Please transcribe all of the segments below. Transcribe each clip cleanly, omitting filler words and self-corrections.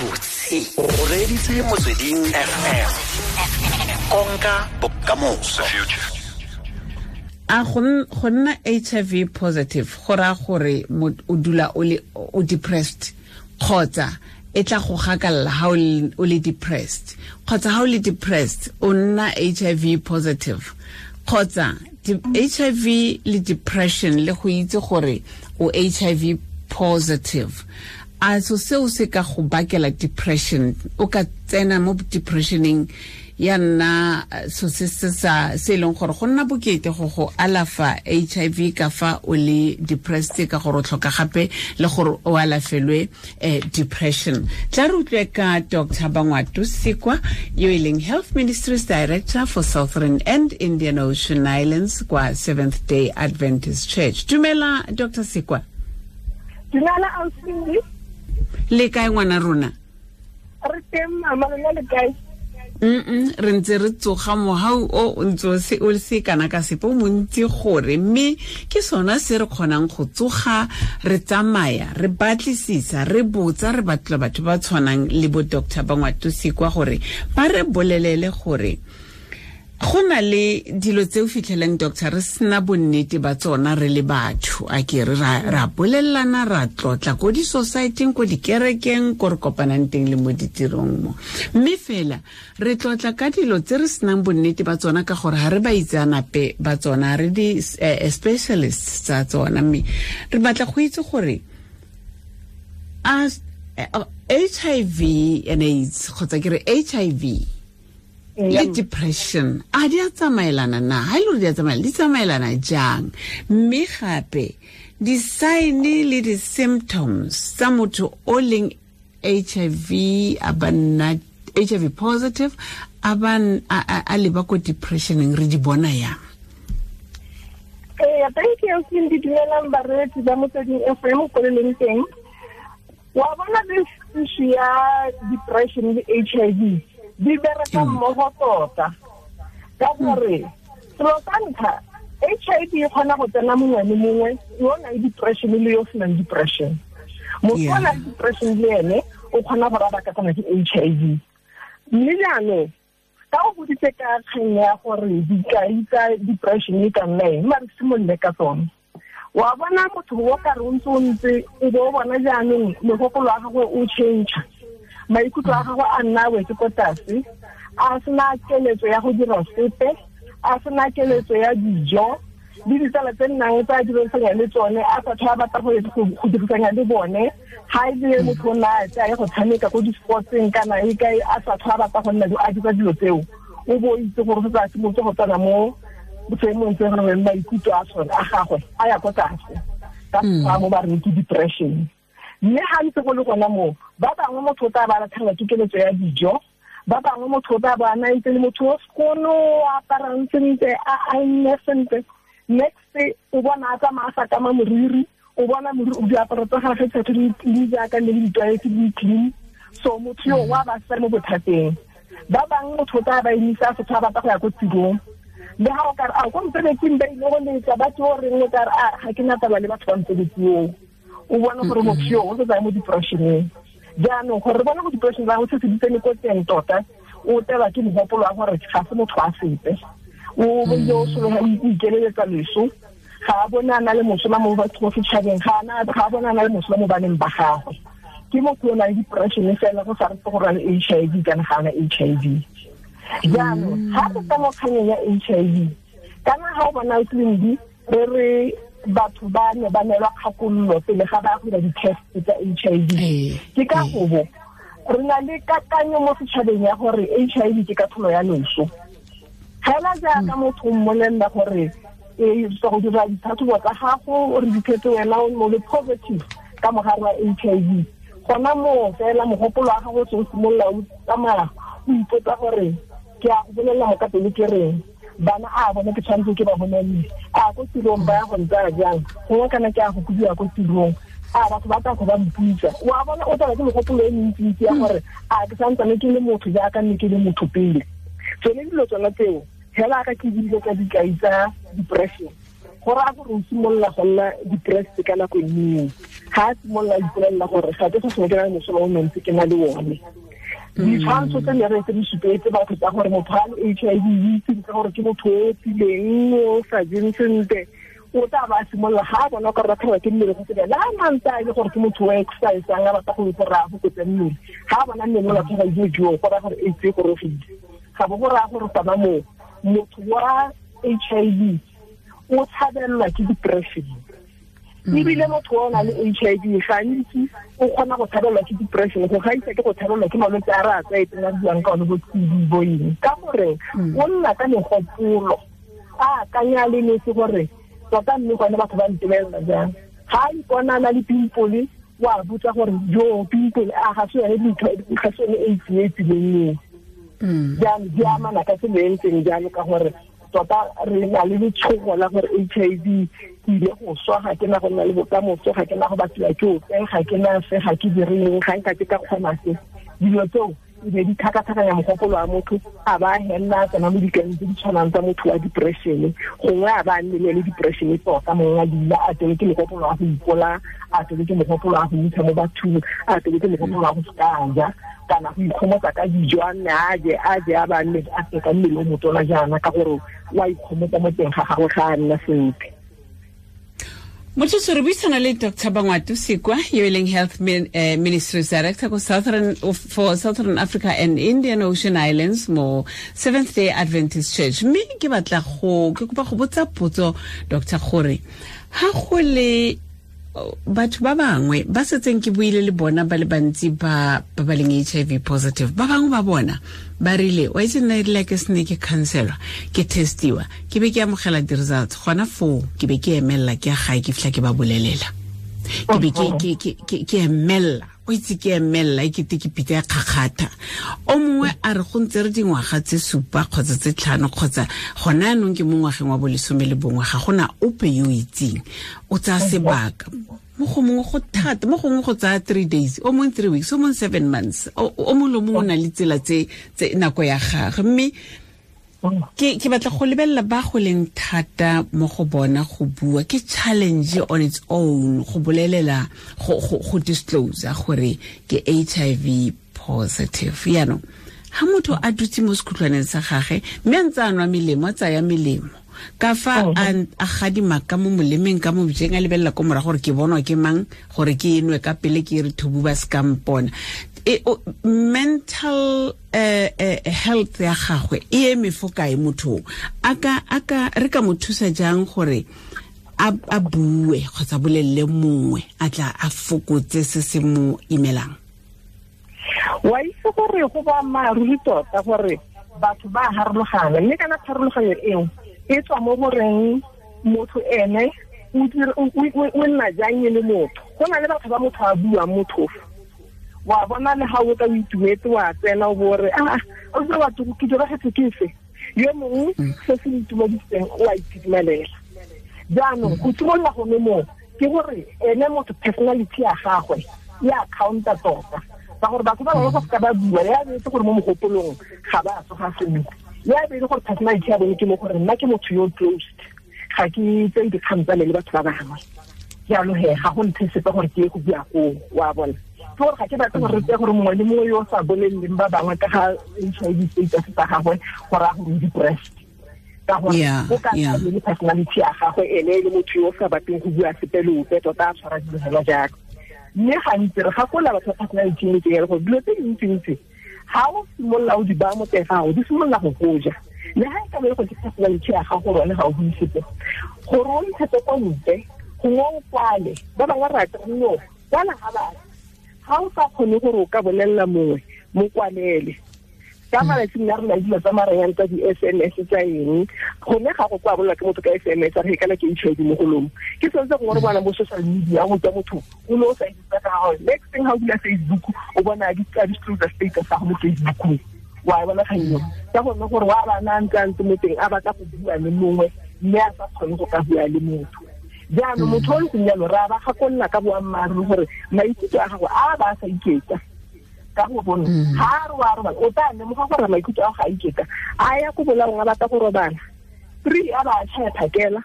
Gabotse o reeditse Motsweding FM, konka bokamoso. A go nna HIV positive go raya gore o dula o le o depressed, kgotsa e tla go gakalla ha o le depressed, kgotsa ha o le depressed o nna HIV positive, kgotsa HIV le depression le go itse gore o HIV positive, a so seo se ka go bakela depression? O ka tsena mo depressioneng ya nna so se se sa se leng gore go nna bokete go alafa HIV ka fa o le depressed, ka gore o tlhoka gape le gore o alafelwe depression. Tla re utlwe ka Dr. Bangwato Sikwa, yo e leng Health Ministries Director for Southern and Indian Ocean Islands kwa Seventh Day Adventist Church. Dumela, Dr. Sikwa. Dumela, Ausi. Le kae, ngwana rona? Re teng, mama, lona le kae? Re ntse re tsoga mohau o ntse o se kana ka sepe o montsi gore, mme ke sona se re kgonang go tsoga, re tsamaya, re batlisisa, re botsa, re batla batho ba tshwanang le bo Dr. Bangwato Sikwa gore ba re bolelele gore go na le dilo tse o fitlheleng, doctor, re sena bonnete ba tsona re le batho. A ke re ra bolelelana, ra tlotla ko di-societeng, ko dikerekeng, ko re kopanang teng le mo ditirong mo, mme fela re tlotla ka dilo tse re senang bonnete ba tsona ka gore ga re ba itseanape ba tsona, re di-specialists tsa tsona. Mme re batla go itse gore a HIV and AIDS, kgotsa ke re HIV le depression, a di a tsamaelana na? Ha e le gore di a tsamaelana, di tsamaelana jang? Mme gape di-sign le di-symptoms tsa motho o leng HIV, a ba nna HIV positive, a ba a leba ko depressioneng, re di bona yang? Ee, thank you. Ke di dumelang bareetsi ba Motsweding FM ko le leng teng. Wa bona, this issue ya depression le HIV di bereka mmogo tota, ka gore selo sa ntlha, HIV e kgona go tsena mongwe le mongwe yo o nang depression le yo o senang depression. Motho o nang depression le ene o kgona go raba ka tsena ke HIV. Mme jaanong ka o boditse ka kgang ya gore dikai tsa depression e ka nna eng, mare simolole ka tsone. Wa bona, motho o ka re o ntse o ntse, o bo o bona jaanong mogopolo wa gagwe o change, maikutlo a gagwe a nna wetse ko tlase, a sena keletso ya go dira sepe, a sena keletso ya dijo, le ditsala tse nnang tsa dirisanya le tsone a sa tlhola batla go dirisanya le bone. Ga e le motho o nna a tsaye go tshameka ko di-sportseng kana e kae, a sa tlhola batla go nna a dira dilo tseo, o bo itse gore se tsa simolotse go tsena mo seemong se gore maikutlo a sone a gagwe a ya ko tlase, ka fa mo ba reng ke depression. Mme ga ntse go le gona moo, ba bangwe motho o tla ba latlhelwa ke keletso ya dijo, ba bangwe motho o tla ba na ntse le motho o sekono, o aparang sentle, a aenne sentle, next o bona a tsamaya a sa kama moriri, o bona diaparo tsa gagwe tsa di jaaka ne le ditlwaetse di clean. So motho yo wa ba sa mo bothateng. Ba bangwe motho o tla ba emisa a setho a batla go ya ko tirong, le ga o kare a ko mosebetsing ba ile go letsa ba tse o reng, o kare a ga ke na taba le batho ba mosebetsi oo. O bona gore motho yo o setse a mo depressioneng. Jaanong gore re bone go depression ba go se se di tsene ko teng tota, o telwa ke mogopolo wa gore ga se motho a sepe, o bile o sologa o ikeleletsa leso, ga a bone a na le mosola mo batho mo setšhabeng, ga a bone a na le mosola mo baneng ba gagwe. Ke motho o nang le depression fela, go sa re gore a le HIV kana ga ana HIV. Jaanong ga re tla mo kganyeng ya HIV, kana ga o bona tleliniki, re re batho ba ne ba neelwa kgakololo pele ga ba go dira di-test tsa HIV, ke ka gobo re na le kakanyo mo setšhabeng ya gore HIV ke katlholo ya loso. Fela jaaka motho o mmolelela gore e go dira ditlhatlhobo tsa gago, o re diphetse wena o mo le positive ka mogare wa HIV, gona moo fela mogopolo wa gago o se o simolola o tsamaya, o ipotsa gore ke a go bolelela mo ka pele ke reng, bana a bone ke tshwanetse ke ba bolelele, a ko tirong ba ya go ntsaya jang, gongwe kana ke a go kobiwa ko tirong, a batho ba tla go ba mpitsa. Wa bona, o tsala ke megopolo e mentsintsi ya gore a ke santsane ke le motho jaaka nne ke le motho pele. Tsone dilo tsona tseo fela ka ke dilo tsa dikai tsa depression. Go raya gore o simolola go nna depressed ka nako eo. Ga a simolola ipolelela gore ga ke sa sengwe ke na le mosola o mentsi ke na le one. Ditshwantsho tse ne re tse di supetse batho tsa gore motho a le HIV itse ka gore ke motho o tileng o sa jeng sentle, o tla ba simolola ga a bona gore batho ba ke mmele go tsela la mantsa e le gore ke motho o exercise-ang a batla go gore a fokotse mmele. Ga a bona mmele o latlhega jo go raya gore AIDS e gorogile. Ga bo go raya gore gona moo motho wa HIV o tshabelelwa ke depression. Ebile motho o na le HIV gantsi o kgona go tshabelelwa ke depression go gaisa ke go tshabelelwa ke malwetse a re a tlwaetseng a buang ka one bo TB bo eng. Ka gore o nna ka megopolo a akanya le nese gore tota mme gone batho ba ntebelela jang. Ga a ipona a na le pimple wa botsa gore jo pimple a ga se yone ga se yone AIDS e tsileng eo. Jaanong di amana ka tsela e ntseng jalo ka gore tota re na le letshogo la gore HIV ke ile go swa, ga ke na go nna le bokamoso, ga ke na go batliwa ke ope, ga ke na se, ga ke direng, ga nka ke ka kgona se. Dilo tseo e be di tlhakatlhakanya mogopolo wa motho, a ba helela a tsena mo dikaneng tse di tshwanang tsa motho wa depression, gongwe a ba a nne le depression tota, mongwe a dula a tsene ke mogopolo wa go ipola, a tsene ke mogopolo wa go intsha mo bathong, a tsene ke mogopolo wa go seka a ja kana go ikgomotsa ka dijo, a nne a je a je a ba nne a se ka mmele o motona jaana ka gore wa ikgomotsa mo teng ga gagwe ga a nna sentle. Motho re buisana le Dr. Bangwato Sekwa, yo e leng Health Ministries Director ko for Southern Africa and Indian Ocean Islands mo Seventh Day Adventist Church. Mme ke batla go ke kopa go botsa potso Dr. gore ha go le batho ba bangwe ba setseng ke buile le bona ba le bantsi ba ba leng HIV positive, ba bangwe ba bona ba rile wa itse nna erile ke sene ke counselwa, ke testiwa, ke be ke amogela di-results gona foo, ke be ke emelela ke ya gae ke fitlha ke ba bolelela, ke be ke emelela, o itse ke emelela e kete ke pitsa ya kgakgatha. O mongwe a re go ntse re dingwaga tse 7 kgotsa tse 5 kgotsa gona anong ke mo ngwageng wa bo 11, ga gona ope yo o itseng, o tsaya sebaka. Mo go mongwe go thata, mo gongwe go tsaya 3 days, o mongwe 3 weeks, o mongwe 7 months, o mongwe le mongwe o na le tsela tse nako ya gagwe. Mme ke batla go lebelela ba go leng thata mo go bona go bua, ke challenge on its own go bolelela go disclose gore ke HIV positive. Yaanong ha motho a dutse mo sekhutlwaneng sa gagwe mme a ntse a nwa melemo, a tsaya melemo ka fa a gadima ka mo molemeng ka mo bojeng, a lebelela ko morago gore ke bonwa ke mang gore ke enwe ka pele ke re thubu ba se ka mpona. Mental health ya gagwe e eme fo kae motho? A ka re ka mo thusa jang gore a bue kgotsa bolelele mongwe a tla a fokotse se se mo imelang? Wa itse gore go boammaaruri tota gore batho ba harologana, mme kana pharologanyo eo e tswa mo goreng motho ene o nna jang e le motho. Go na le batho ba motho a buang mothofo, wa bona le ga o ka o itumetse wa tsena o bo re a o tse batho ke diragetse ke se, yo mongwe se se itumediseng o a itumelela. Jaanong go simolola gone moo ke gore ene motho personality ya gagwe ya counter tota, ka gore batho ba bangwe go seka ba bua ya be itse gore mo mogopolong ga ba tsoga sentle, ya be e le gore personality ya bone ke mo gore nna ke motho yo closed, ga ke tseye dikgang tsa me le batho ba bangwe, jalo he ga go nthe sepe gore ke ye go bua koo, wa bona. Ke gore ga ke batle gore re tseye gore mongwe le mongwe yo o sa boleleleng ba bangwe ka ga HIV status sa gagwe gore a gore o depressed, ka gore o ka le personality ya gagwe ene e le motho yo o sa batleng go bua sepe le ope tota a tshwara dilo fela jalo. Mme gantsi re gakola batho ba personality e ntseng gore dilo tse dintsintsi ga o simolola o di baya mo teng gago di simolola go goja, le ga e ka be e go ke personality ya gago gore one ga o bue sepe, gore o ntshetse ko ntle gongwe o kwale, ba bangwe rata no kwala ga batho, ga o sa kgone gore o ka bolelela mongwe mo kwalele. Ka malatsing a rena dilo tsa maranyane tsa di-SMS tsa eng, gone ga go kwa bolelwa ke motho ka SMS a re kana ke HIV mo golong, ke sone se gongwe re bona mo social media go tswa motho o ne o sa itse ka gagwe, next thing ga o bula Facebook o bona a disclose status sa go mo Facebookong, wa e bona kgang eo ka gonne gore wa bana a ntse a ntse mo teng a batla go bua le mongwe mme a sa kgone go ka bua le motho. Jaanong motho o ntseng jalo re a ba gakolola ka boammaaruri gore maikutlo a gagwe a ba a sa iketla, ka go bona ga a re wa robala o tla lemoga gore maikutlo a ga a iketla, a ya ko bolaong a batla go robala, 3 a ba a tšhaya phakela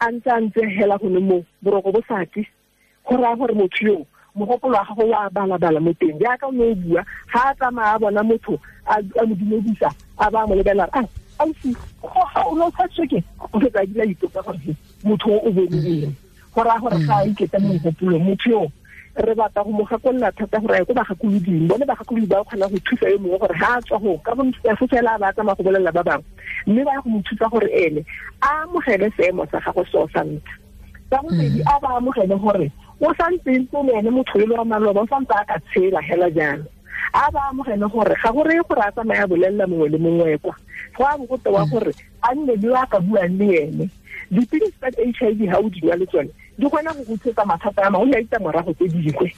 A ntse hela go ne mo boroko bo sa tle go raya gore motho yo mogopolo wa gago wa balabala mo teng jaaka o ne o bua ga a tsamaya a bona motho a mo dumedisa a ba mo lebelela a ausi ga o ne o tshwatswe ke o fetsa a dila ipotsa gore motho o bone eng go raya gore ga a iketsa mo mogopolong motho yo re batla go mo gakolola thata gore a ye ko bagakoloding bone bagakolodi ba kgona go thusa yo mongwe gore ga a tswa go ka bo fela ba tsamaya go bolelela ba bangwe mme ba ya go mo thusa gore ene a amogele seemo sa gagwe seo sa ntlha sa bobedi a ba amogele gore o santse ntse le ene motho yo wa maloba o santse a ka tshela hela jalo a ba amogele gore ga go reye gore a tsamaya bolelela mongwe le mongwe kwa go a bo go tewa gore a nne le a ka buang le ene dipilisi tsa HIV ga o di nwa le tsone di kgona go go tshetsa mathata a mangwe le a ditlamorago tse dingwe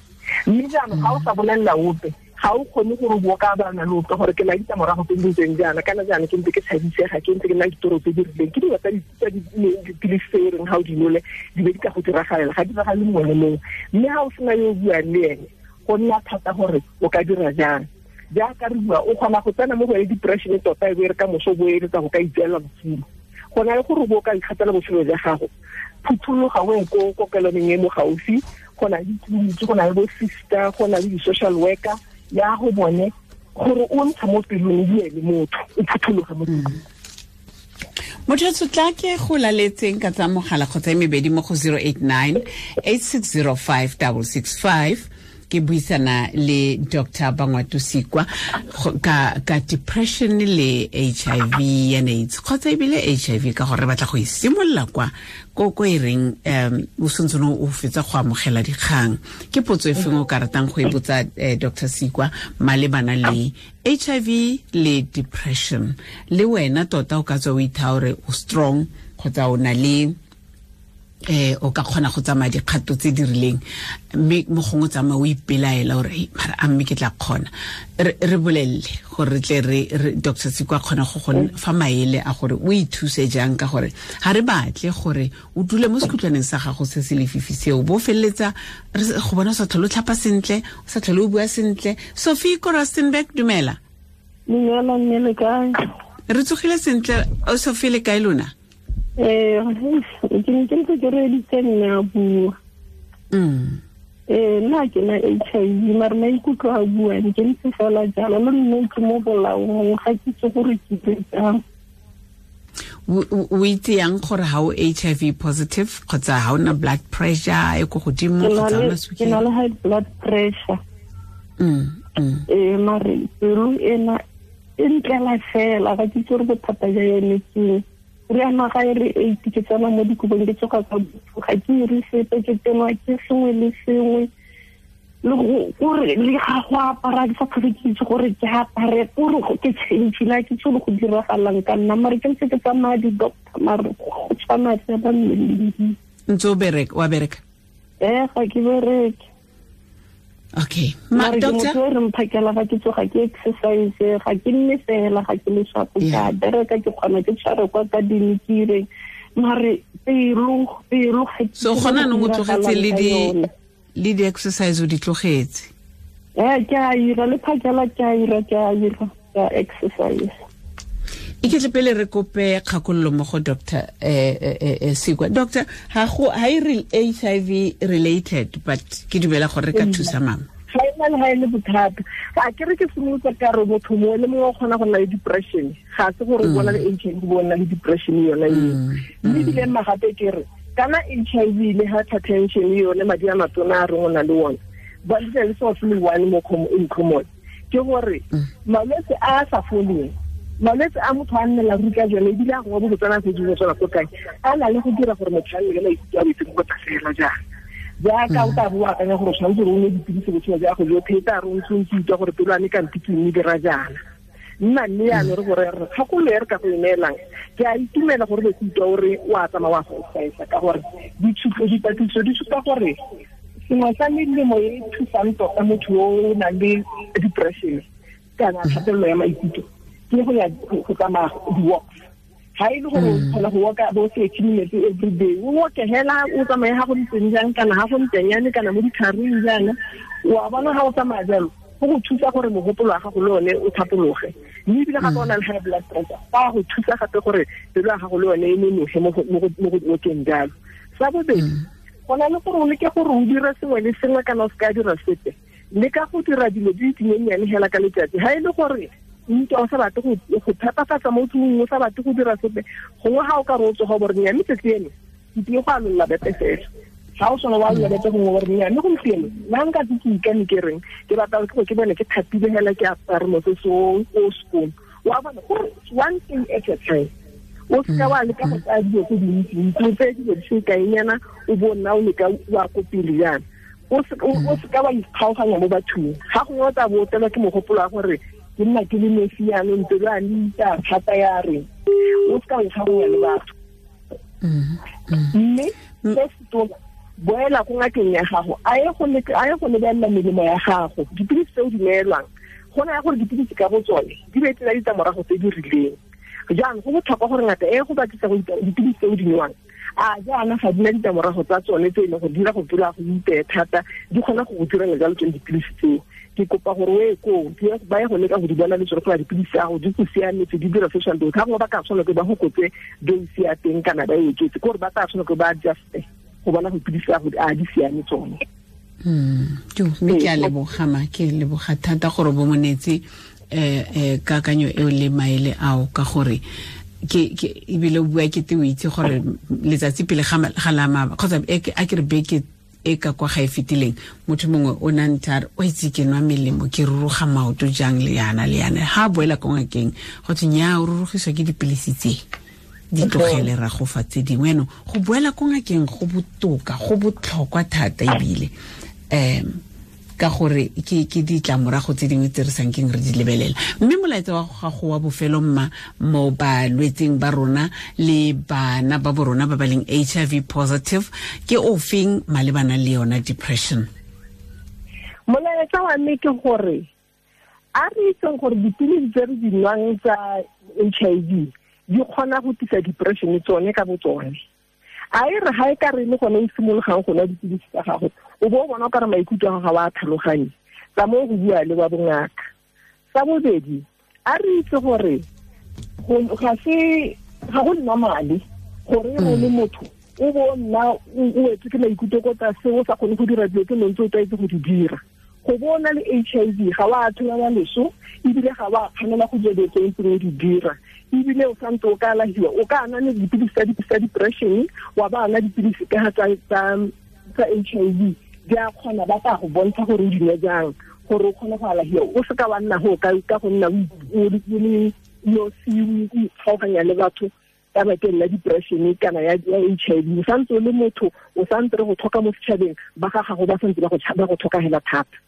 mme jaanong ga o sa bolelela ope ga o kgone gore o bo ka bana le ope gore ke na ditlamorago tse di ntseng jaana kana jaana ke ntse ke tshabisega ke ntse ke nna ditoro tse di rileng ke dilo tsa dipilisi tse e reng ga o di nole di be di ka go diragalela ga di diragale mongwe le mongwe mme ga o sena yo o buang le ene go nna thata gore o ka dira jang jaaka re bua o kgona go tsena mo go e depression tota e bo e re ka moso bo eletsa go ka itseela botshelo go na le gore bo ka ikgatela botshelo jwa gago phuthologa o ye ko kokelwaneng e mo gaufi go na le ditleliniki go na le bo sister go na le di-social worker ya go bone gore o ntsha mo pelong o bue le motho o phuthologe mo pelong. Motho o tla ke go laletseng ka tsa mogala kgotsa e mebedi mo go 089 8605 665 ke buisana le Dr. Bangwato Sikwa ka depression le HIV and AIDS kgotsa ebile HIV ka gore re batla go e simolola kwa ko e reng o santse o fetsa go amogela dikgang ke potso e feng o ka ratang go e botsa Dr. Sikwa malebana le HIV le depression le wena tota o ka tswa o itha gore o strong kgotsa o na le o ka kgona go tsamaya dikgato tse di rileng mme mo gongwe tsamaya o ipelaela gore mara a mme ke tla kgona re bolelele gore re tle re Dr. Sikwa kgona go go fa maele a gore o ithuse jang ka gore ga re batle gore o dule mo sekhutlwaneng sa gago se se lefifi seo bo feleletsa go bona o sa tlhole o tlhapa sentle o sa tlhole o bua sentle. Sophie ko Rustenburg, dumela. Dumela mme, le kae? Re tsogile sentle. O Sophie, le kae lona? Ke ne ke ntse ke reeditse mme a bua. Nna ke na HIV mare maikutlo a buang ke ntse fela jalo le nne ke mo bolaong ga ke itse gore ke dire jang. O itse yang gore ga o HIV positive kgotsa ga o na blood pressure e ko godimo kgotsa o na sukiri? Ke na le high blood pressure. Mare pelo ena e ntlela fela ga ke itse gore bothata jwa yone ke re ana ga e re 8 ke tsena mo dikobong ke tsoga ka ga ke ire sepe ke tsenwa ke sengwe le sengwe le gore le ga go apara ke sa tlhole ke itse gore ke apare gore ke change la ke tsolo go diragalang ka nna mare ke ntse ke tsamaya di-doctor mare go tshwana fela mmeleng. Ntse o bereka wa bereka? Ga ke bereke. Okay. Ma doctor, re mphakela ga ke tsoga ke exercise ga ke nne fela ga ke le shapo ka bereka ke kgona ke tshware kwa ka dinikireng mare pelo ga so gona no o tlogetse le di exercise o di tlogetse? Ke a ira le phakela ke a ira ka exercise. E ke tle pele re kope kgakololo mo go Dr. Sikwa. Doctor, ga e HIV related but ke dumela gore re ka thusa mama. Ga e na le ga e le bothata. A ke re ke simolotse ka re motho mongwe le mongwe o kgona go nna le depression. Ga se gore o bona le HIV o nna le depression yona eo. Mme ebile mma gape ke re kana HIV le hypertension yone madi a matona a reng o na le one. Ba le le so se le one mo in common. Ke gore malwetse a sa foleng malwetse a motho a nnela ruri ka jone ebile a gongwe bo botsana se dingwe tsona ko kae a na le go dira gore motho a nne le maikutlo a boitseng go fela jaana jaaka o tla bo o akanya gore o tshwanetse gore o nwe dipilisi botshelo jwa gago jotlhe e tla re o ntse o ntse utlwa gore pelo ame kante ke mme dira jaana nna mme yaanong re gore re kgakololo e re ka go e neelang ke a itumela gore be ke utlwa ore o a tsamaya wa go exercise ka gore dipatlisiso di supa gore sengwe sa melemo e thusang tota motho yo o nang le depression kana kgatelelo ya maikutlo ke go ya go tsamaya di-walks ga e le gore o kgona go walka bo 30 minutes every day o walke hela o tsamaye ga go ntseng jang kana ga go ntsenyane kana mo ditlhareng jaana wa bona ga o tsamaya jalo Go go thusa gore mogopolo wa gago le one o thapologe, mme ebile gape o na le high blood pressure, go a go thusa gape gore pelo ya gago le yone e nonoge mo go okeng jalo. Sa bobedi, go na le gore o leke gore o dire sengwe le sengwe kana o se ka dira sepe, le ka go dira dilo di dinyenyane hela ka letsatsi. Ha e le gore ntwa o sa batle go phepafatsa mo tlung, o sa batle go dira sepe, gongwe ga o ka re o tsoga gore nya mme tsatsi eno ke tlile go alolla bete fela, ga o sone wa alolla bete gongwe gore nya mme gompieno nna nka tse ke ikane ke reng ke batla go ke bone ke thapile hela ke apare mosese o sekolo. Wa bona gore one thing at a time, o seka wa leka go tsaya dilo tse dintsi, o tseye dilo di sekaenyana o bo nna o leka wa ko pele jaana. O seka wa ikgaoganya mo bathong, ga gongwe o tla bo o tlelwa ke mogopolo wa gore ke nna ke le nosi jaanong pelo ya me ita thata ya reng, o seka wa ikgaoganya le batho. Mme se se tona, boela ko ngakeng ya gago, a ye go lebelela melemo ya gago, dipilisi tse o di neelwang. Go na ya gore dipilisi ka bo tsone di be tsena ditlamorago tse di rileng. Jaanong go botlhokwa gore ngaka e go batlisa go dipilisi tse o di newang, a jaana ga di na ditlamorago tsa tsone tse e leng gore di dira go pelo ya go iteye thata, di kgona go go direla jalo tsone dipilisi tseo. Ke kopa gore o ye koo, ba ye go leka go di bona le tsone gore dipilisi tsa gago di go siametse, di dira social dose. Ga gongwe ba ka tshwanela ke ba go kotse dose ya teng kana ba e oketse, ke gore ba tla tshwanela ke ba adjuste go bona go dipilisi tsa gago a di siame tsone. Mme ke a leboga ma, ke leboga thata gore bo monetse kakanyo eo le maele ao, ka gore ke ebile o bua ke te o itse gore letsatsi pele ga la maba kgotsa a ke re beke e ka kwa ga e fetileng, motho mongwe o na ntse a re o itse ke nwa melemo ke ruruga maoto jang le yana le yana. Ha a boela ko ngakeng go thwe nnyaa, o rurugiswa ke dipilisi tse di tlogele ra go fa tse dingwe. Yaanong go boela ko ngakeng go botoka, go botlhokwa thata ebile ka gore ke ditlamorago tse dingwe tse re sankeng re di lebelela. Mme molaetsa wa gago wa bofelo mma mo balwetseng ba rona le bana ba bo rona ba ba leng HIV positive ke o feng malebana le yona depression? Molaetsa wa me ke gore a re itseng gore dipilisi tse re di nwang tsa HIV di kgona go tlisa depression tsone ka bo tsone. A e re ga e ka re le gone o simologang go nwa dipilisi tsa gago, o bo o bona o ka re maikutlo a gago ga wa tlhaloganye, tsa mo go bua le wa bongaka. Sa bobedi, a re itse gore ga go normale gore o le motho o bo nna o wetswe ke maikutlo ko tlase, o sa kgone go dira dilo tse ntse o tlwaetse go di dira. Go bo o na le HIV ga wa tshwanela leso, ebile ga wa kganela go dira dilo tse ntseng o di dira, ebile o santse o ka alahiwa, o ka nwa le dipilisi tsa depression, wa ba nwa dipilisi ka tsa HIV, di a kgona ba tla go bontsha gore o di nwe jang gore o kgone go alahiwa. O seka wa nna go ka go nna o le nosi, o ikgaoganya le batho ka bakeng la depression kana ya HIV. O santse o le motho, o santse re go tlhoka mo setšhabeng, ba ga gago ba santse ba go tlhoka hela thata.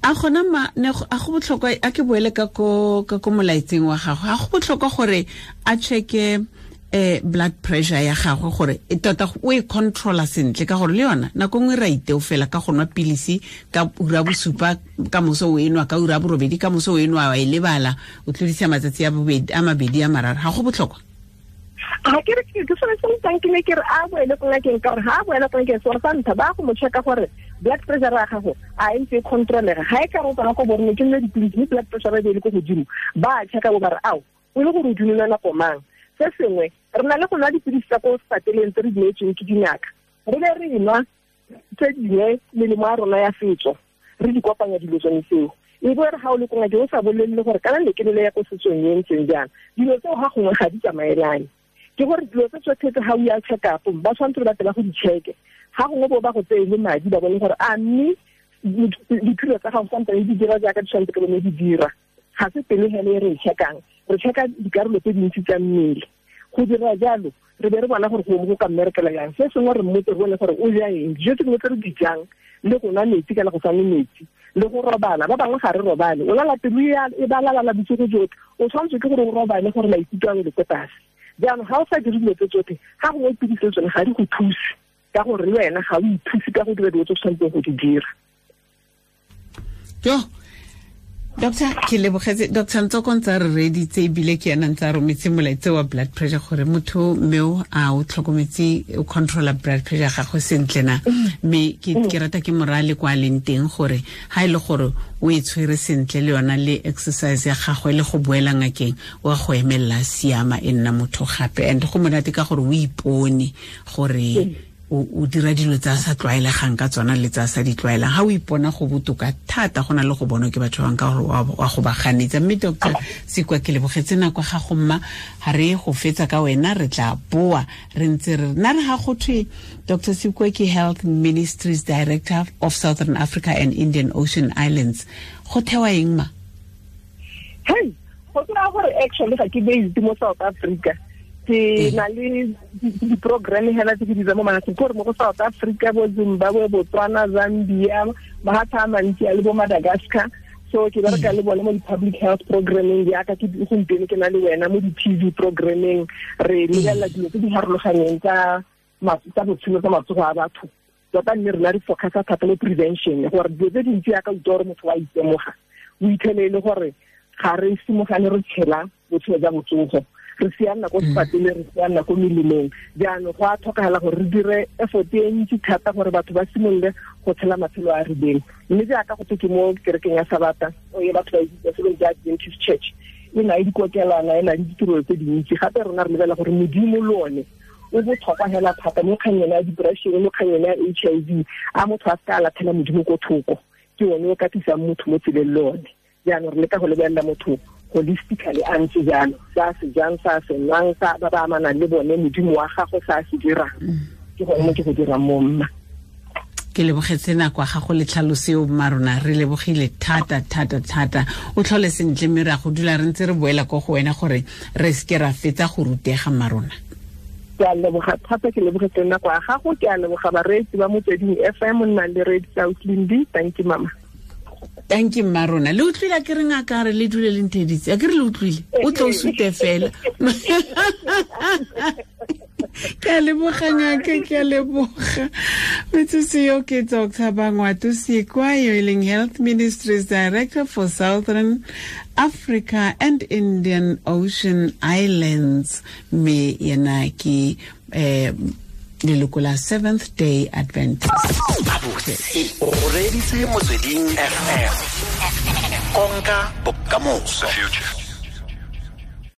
A gona ma ne a go botlhokwa, a ke boele ka ko molaetseng wa gago, a go botlhokwa gore a checke blood pressure ya gagwe gore e tota o e controla sentle, ka gore le yona nako nngwe ra iteo fela ka go nwa pilisi ka ura bosupa ka moso o enwa, ka ura borobedi ka moso o enwa, wa e lebala, o tlodisa matsatsi a mabedi a mararo. Ga go botlhokwa? Ga ke re ke sone se ntang ke ne ke re a boele ko ngakeng, ka gore ga a boela ko ngakeng sone sa ntlha ba go mo checka gore blood pressure ya gago a e ntse e controlega. Ga e ka re o tsena ko borone ke nne dipilisi mme blood pressure e be e le ko godimo, ba checka bo ba re ao o le gore o dumela nako mang. Se sengwe, re na le go nwa dipilisi tsa ko sepateleng tse re di neetsweng ke dingaka, re be re nwa tse dingwe melemo ya rona ya setso, re di kopanya dilo tsone tseo. E bo re ga o le ko ngakeng o sa bolelele gore kana ne ke nele ya ko setsong e ntseng jang, dilo tseo ga gongwe ga di tsamaelane. Ke gore dilo tse tsotlhe tse ga o ya check up ba tshwanetse ba tla go di checke, ga gongwe bo ba go tseye le madi ba bone gore a mme diphilo tsa gago santse di dira jaaka di tshwanetse ke bone di dira. Ga se pele hele e re e checkang, re checka dikarolo tse dintsi tsa mmele. Go dira jalo re be re bona gore go ka mmerekela jang. Se sengwe re mmotse re bone gore o ja eng, dijo tse dingwe tse re di jang, le go nwa metsi kana go sa nwe metsi, le go robala. Ba bangwe ga re robale, o lala pelo e balalala bosigo jotlhe, o tshwanetse ke gore o robale gore maikutlo a wele ko tlase. Jaanong ga o sa dire dilo tse tsotlhe, ga gongwe pilisi le tsone ga di go thuse, ka gore le wena ga o ithuse ka go dira dilo tse o tshwanetseng go di dira. Jo, Doctor, ke lebogetse Dr. Ntsoko ntse a re reeditse ebile ke ena ntse a rometse molaetsa wa blood pressure gore motho mmeo a o tlhokometse o controla blood pressure gagwe sentle na. Mme ke rata ke morale kwa leng teng gore ha e le gore o e tshwere sentle le yona le exercise ya gagwe le go boela ngakeng wa go emella siama e nna motho gape. And go monate ka gore o ipone gore o dira dilo tsa sa tlwaelegang ka tsona le tsa sa di tlwaelang. Ha o ipona go botoka thata go na le go bonwa ke batho ba bangwe ka gore wa go ba ganetsa. Mme Dr. Sekwa, ke lebogetse nako ga go mma, ha re go fetsa ka wena re tla boa re ntse re nna re ga go thwe Dr. Sekwa ke Health Ministries Director of Southern Africa and Indian Ocean Islands. Go thewa eng ma? Hey, go tsaya gore actually ga ke based mo South Africa. Ke na le di-programme hela tse ke di mo mafatsheng, ke gore mo go South Africa, bo Zimbabwe, Botswana, Zambia, mahatshe a mantsi a le bo Madagascar. So ke bereka le bone mo di-public health programming jaaka ke gompieno ke na le wena mo di-T V programming, re lebelela dilo tse di farologaneng tsa botshelo tsa matsogo a batho. Tota mme rena re focusa thata mo prevention, gore dilo tse dintsi jaaka utlwa gore motho wa itemoga, o itlhele e le gore ga re simogane re tshela botshelo jwa botsogo, re sianna ko sepatele, re sianna ko melemong. Jaanong go a tlhokagala gore re dire effort e ntsi thata gore batho ba simolole go tshela matshelo a a rileng. Mme jaaka go twe ke mo kerekeng ya Sabata, o ye batho ba itse se ba Adventist Church, e na le dikokelwana, e na le ditirelo tse dintsi. Gape rona re lebelela gore Modimo le one o botlhokwa hela thata mo kgang ya depression, mo kgang ya H I V, a motho a seka a latlhela Modimo ko thoko, ke one o ka tlisang motho mo tseleng le one. Jaanong re leka go lebelela motho holistically a ntse jalo, sa se jang, sa se nwang, sa ba ba amanang le bone, Modimo wa gagwe sa se dirang. Ke gone mo ke go dirang mo mma. Ke lebogetse nako ya gago le tlhaloso eo, mma rona, re lebogile thata, thata, thata. O tlhole sentle mme re a go dula re ntse re boela ko go wena gore re seke ra fetsa go rutega, mma rona. Ke a leboga thata, ke lebogetse nako ya gago, ke a leboga bareetsi ba Motsweding F M, nnang le reetsa Ausi Lindi. Thank you, mama. Thank you, mma rona. Le utlwile a ke re ngaka re le dule le ntheditse. A ke re le utlwile? O tlo o sute fela. Ke a leboga ngaka, ke a leboga. Metsotso eo ke Doctor Bangwato Sekwa, yo e leng Health Ministries Director for Southern Africa and Indian Ocean Islands. Mme yena ke leloko la Seventh Day Adventist. O reditse Motsweding F M. Konka bokamoso. The future.